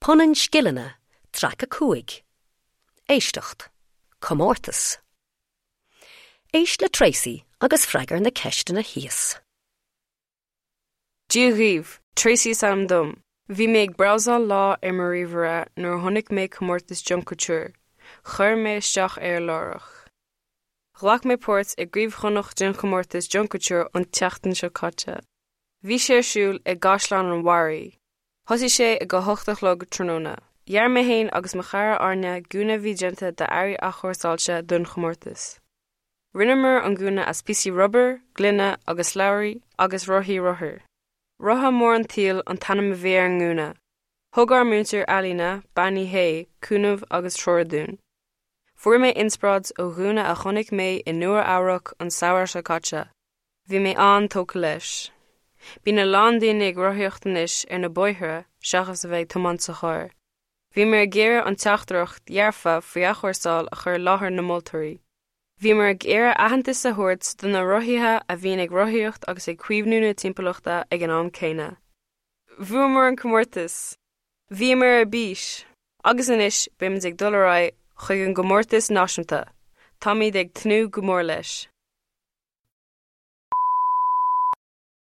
Punann Scileanna, Traic 5, Éisteacht, Comórtas. Éist le Tracey agus freagair na ceisteanna thíos. Dia dhaoibh, Tracey is ainm dom. Bhí mé ag brabhsáil lá ar mo ríomhaire nuair a chonaic mé comórtas Junk Kouture. Chuir mé isteach air láithreach. Ghlac mé páirt i gCraobh Chonnacht den chomórtas Junk Kouture an tseachtain seo caite. Bhí sé ar siúl i gCaisleán an Bharraigh. Thosaigh sé ag a hocht a chlog tráthnóna. Dhear mé féin agus mo chara Áine gúna a bhí déanta d'earraí athchúrsáilte don chomórtas. Rinneamar an gúna as píosaí rubair, gloine agus slabhraí agus rothaí rothair. Rotha Mór an tSaoil an t-ainm a bhí ar an ngúna. Thug ár múinteoir ealaíne, Bean Uí Shé, cúnamh agus treoir dúinn. Fuair mé inspioráid ó ghúna a chonaic mé i Nua Eabhrac an samhradh seo caite. Bhí mé an-tógtha leis. Bíonn a lán daoine ag rothaíocht anois ar na bóithre seachas a bheith ag tiomáint sa charr. Bhíomar ag iarraidh an teachtaireacht dhearfa faoi athchúrsáil a chur i láthair na moltóirí. Bhíomar ag iarraidh aitheantas a thabhairt do na rothaithe a bhíonn ag rothaíocht agus ag caomhnú na timpeallachta ag an am céanna. Bhuamar an comórtas! Bhíomar ar bís! Agus anois beimid ag dul ar aghaidh chuig an gcomórtas náisiúnta. Táimid ag tnúth go mór leis.